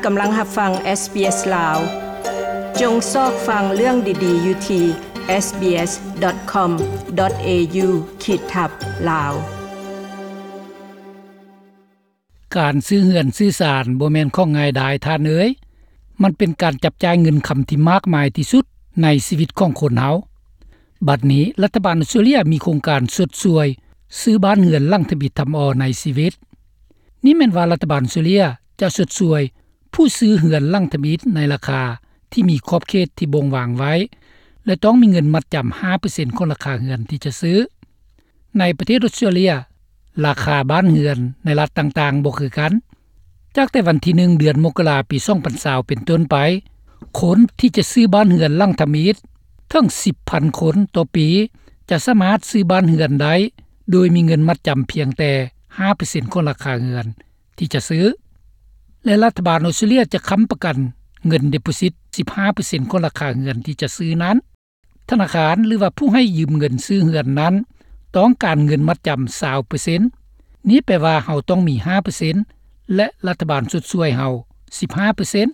ກຳລັງຮັບຟັງ SBS ລາວ. ຈົ່ງຊອກຟັງເລື່ອງດີໆຢູ່ທີ່ SBS.com.au ຂີດທັບ ລາວ. ການຊື້ເຮືອນຊື້ຊານບໍ່ແມ່ນຂອງງ່າຍດາຍທ່ານເອີຍ. ມັນເປັນການຈັບຈ່າຍເງິນຄຳທີ່ມາກມາຍທີ່ສຸດໃນຊີວິດຂອງຄົນເຮົາ. ບັດນີ້ລັດຖະບານອອສເຕຣເລຍມີໂຄງການຊົດຊ່ວຍຊື້ບ້ານເຮືອນຫຼັງທຳອິດທຳອໍໃນຊີວິດ. ນີ້ແມ່ນວ່າລັດຖະບານອອສເຕຣເລຍຈະຊົດຊ່ວຍຜູ້ຊື້ເຮືອນຫຼັງທຳອິດໃນລາຄາທີ່ມີຂອບເຂດທີ່ບົ່ງວາງໄວ້ ແລະ ຕ້ອງມີເງິນມັດຈຳຫ້າເປີເຊັນຂອງລາຄາເຮືອນທີ່ຈະຊື້. ໃນປະເທດອອສເຕຣເລຍ, ລາຄາບ້ານເຮືອນໃນລັດຕ່າງໆບໍ່ຄືກັນ. ຈາກແຕ່ວັນທີໜຶ່ງ ເດືອນມົກກະລາ ປີສອງພັນຊາວ ເປັນຕົ້ນໄປ, ຄົນທີ່ຈະຊື້ບ້ານເຮືອນຫຼັງທຳອິດເຖິງສິບພັນຄົນຕໍ່ປີ ຈະສາມາດຊື້ບ້ານເຮືອນໄດ້ ໂດຍມີເງິນມັດຈຳພຽງແຕ່ຫ້າເປີເຊັນຂອງລາຄາເຮືອນທີ່ຈະຊື້ ແລະ ລັດຖະບານອອສເຕຣເລຍຈະຄ້ຳປະກັນເງິນ deposit ສິບຫ້າເປີເຊັນຂອງລາຄາເຮືອນທີ່ຈະຊື້ນັ້ນ. ທະນາຄານ ຫຼືວ່າຜູ້ໃຫ້ຢືມເງິນຊື້ເຮືອນນັ້ນ ຕ້ອງການເງິນມັດຈຳຊາວເປີເຊັນ. ນີ້ແປວ່າເຮົາຕ້ອງມີຫ້າເປີເຊັນ ແລະ ລັດຖະບານຊົດຊ່ວຍເຮົາສິບຫ້າເປີເຊັນ.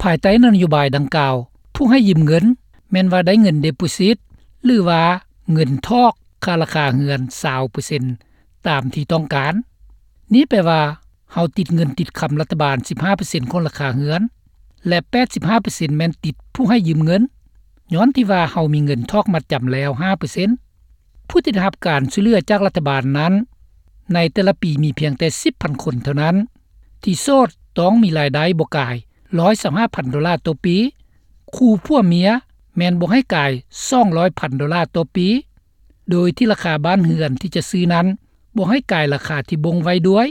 ພາຍໃຕ້ນະໂຍບາຍດັ່ງກ່າວ, ຜູ້ໃຫ້ຢືມເງິນແມ່ນວ່າໄດ້ເງິນ deposit ຫຼືວ່າເງິນຖອກຄ່າລາຄາເຮືອນຊາວເປີເຊັນຕາມທີ່ຕ້ອງການ. ນີ້ແປວ່າ ເຮົາຕິດເງິນຕິດຄຳລັດຖະບານສິບຫ້າເປີເຊັນຂອງລາຄາເຮືອນ ແລະ ແປດສິບຫ້າເປີເຊັນແມ່ນຕິດຜູ້ໃຫ້ຢືມເງິນ, ຍ້ອນທີ່ວ່າເຮົາມີເງິນຖອກມັດຈຳແລ້ວຫ້າເປີເຊັນ. ຜູ້ທີ່ໄດ້ຮັບການຊ່ວຍເຫຼືອຈາກລັດຖະບານນັ້ນ, ໃນແຕ່ລະປີມີພຽງແຕ່ສິບພັນຄົນເທົ່ານັ້ນ. ທີ່ໂສດຕ້ອງມີລາຍໄດ້ບໍ່ກາຍຮ້ອຍຊາວຫ້າພັນໂດລາຕໍ່ປີ. ຄູ່ຜົວເມຍແມ່ນບໍ່ໃຫ້ກາຍສອງຮ້ອຍພັນໂດລາຕໍ່ປີ. ໂດຍທີ່ລາຄາບ້ານເຮືອນທີ່ຈະຊື້ນັ້ນບໍ່ໃຫ້ກາຍລາຄາທີ່ບົ່ງໄວ້ດ້ວຍ.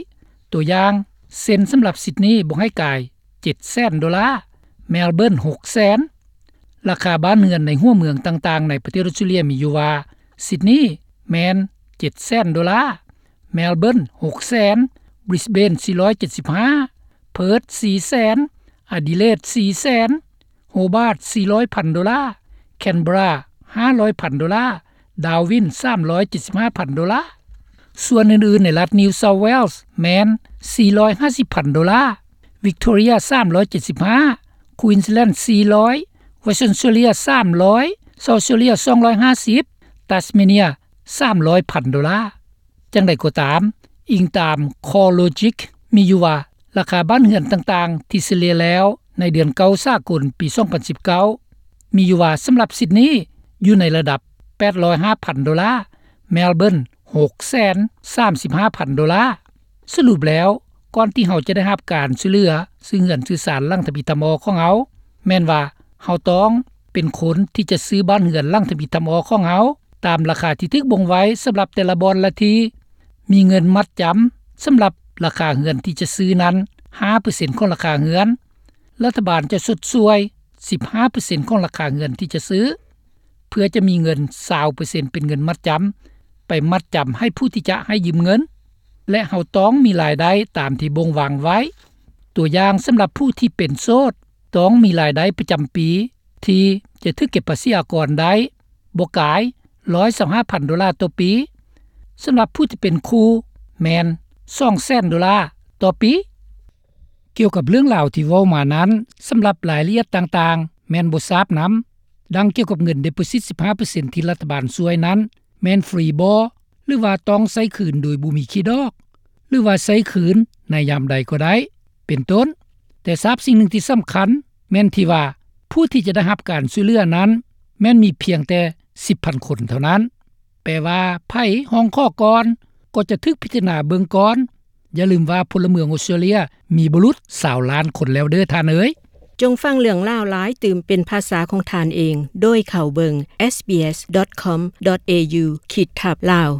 ຕົວຢ່າງ, ເຊັ່ນ ສຳລັບຊິດນີບໍ່ໃຫ້ກາຍເຈັດແສນໂດລາ, ແມລເບີນຫົກແສນ. ລາຄາບ້ານເຮືອນໃນຫົວເມືອງຕ່າງໆໃນປະເທດອອສເຕຣເລຍມີຢູ່ວ່າ ຊິດນີແມ່ນເຈັດແສນໂດລາ, ແມລເບີນຫົກແສນ, ບຣິສເບນສີ່ຮ້ອຍເຈັດສິບຫ້າ, ເພີດສີ່ແສນ, ອາດີເລດສີ່ແສນ, ໂຮບາດສີ່ຮ້ອຍພັນໂດລາ, ແຄນເບີຣາຫ້າຮ້ອຍພັນໂດລາ, ດາວິນສາມຮ້ອຍເຈັດສິບຫ້າພັນໂດລາ. ສ່ວນອື່ນໆໃນລັດ New South Wales ແມ່ນສີ່ຮ້ອຍຫ້າສິບພັນໂດລາ, ວິກໂທເຣຍສາມຮ້ອຍເຈັດສິບຫ້າ, ຄວີນສ໌ແລນສີ່ຮ້ອຍ, ເວສເທິນອອສເຕຣເລຍສາມຮ້ອຍ, ເຊົາສ໌ອອສເຕຣເລຍສອງຮ້ອຍຫ້າສິບ, ຕັສເມເນຍສາມຮ້ອຍພັນໂດລາ. ຈັ່ງໃດກໍຕາມ, ອີງຕາມ CoreLogic ມີຢູ່ວ່າ ລາຄາບ້ານເຮືອນຕ່າງໆທີ່ສະເລ່ຍແລ້ວໃນເດືອນເກົ້າສາກົນປີສອງພັນສິບເກົ້າ ມີຢູ່ວ່າ ສຳລັບຊິດນີຢູ່ໃນລະດັບແປດຮ້ອຍຫ້າພັນໂດລາ, ແມລເບີນຫົກແສນສາມສິບຫ້າພັນໂດລາ. ສະຫຼຸບແລ້ວ, ກ່ອນທີ່ເຮົາຈະໄດ້ຮັບການຊ່ວຍເຫຼືອຊື້ເຮືອນຊື້ຊານຫຼັງທຳອິດທຳອໍຂອງເຮົາ, ແມ່ນວ່າເຮົາຕ້ອງເປັນຄົນທີ່ຈະຊື້ບ້ານເຮືອນຫຼັງທຳອິດທຳອໍຂອງເຮົາ ຕາມລາຄາທີ່ຖືກບົ່ງໄວ້ສຳລັບແຕ່ລະບ່ອນລະທີ່, ມີເງິນມັດຈຳສຳລັບລາຄາເຮືອນທີ່ຈະຊື້ນັ້ນຫ້າເປີເຊັນຂອງລາຄາເຮືອນ. ລັດຖະບານຈະຊົດຊ່ວຍສິບຫ້າເປີເຊັນຂອງລາຄາເຮືອນທີ່ຈະຊື້, ເພື່ອຈະມີເງິນຊາວເປີເຊັນເປັນເງິນມັດຈຳ ໄປມັດຈຳໃຫ້ຜູ້ທີ່ຈະໃຫ້ຢືມເງິນ ແລະ ເຮົາຕ້ອງມີລາຍໄດ້ຕາມທີ່ບົ່ງວາງໄວ້. ຕົວຢ່າງ, ສຳລັບຜູ້ທີ່ເປັນໂສດ ຕ້ອງມີລາຍໄດ້ປະຈຳປີທີ່ຈະຖືກເກັບພາສີອາກອນໄດ້ ບໍ່ກາຍຮ້ອຍຊາວຫ້າພັນໂດລາຕໍ່ປີ. ສຳລັບຜູ້ທີ່ເປັນຄູ່ແມ່ນສອງແສນໂດລາຕໍ່ປີ. ກ່ຽວກັບເລື່ອງລາວທີ່ເວົ້າມານັ້ນ, ສຳລັບລາຍລະອຽດຕ່າງໆແມ່ນບໍ່ຊາບນຳ, ດັ່ງກ່ຽວກັບເງິນ deposit ສິບຫ້າເປີເຊັນທີ່ລັດຖະບານຊ່ວຍນັ້ນ ແມ່ນຟຣີບໍ ຫຼືວ່າຕ້ອງໃຊ້ຄືນໂດຍບໍ່ມີຂີດອກ ຫຼືວ່າໃຊ້ຄືນໃນຍາມໃດກໍໄດ້ ເປັນຕົ້ນ. ແຕ່ຊາບສິ່ງໜຶ່ງທີ່ສຳຄັນແມ່ນທີ່ວ່າ ຜູ້ທີ່ຈະໄດ້ຮັບການຊ່ວຍເຫຼືອນັ້ນ ແມ່ນມີພຽງແຕ່ສິບພັນຄົນເທົ່ານັ້ນ. ແປວ່າ ໃຜຮ້ອງຂໍກ່ອນກໍຈະຖືກພິຈາລະນາເບິ່ງກ່ອນ. ຢ່າລືມວ່າພົນລະເມືອງອອສເຕຣເລຍມີບໍ່ຫຼຸດຊາວລ້ານຄົນແລ້ວເດີ້ທ່ານເອີຍ. ຈົ່ງຟັງເລື່ອງລາວຫຼາຍຕື່ມເປັນພາສາຂອງທ່ານເອງ ໂດຍເຂົ້າເບິ່ງ SBS.com.au ຂີດທັບ Lao.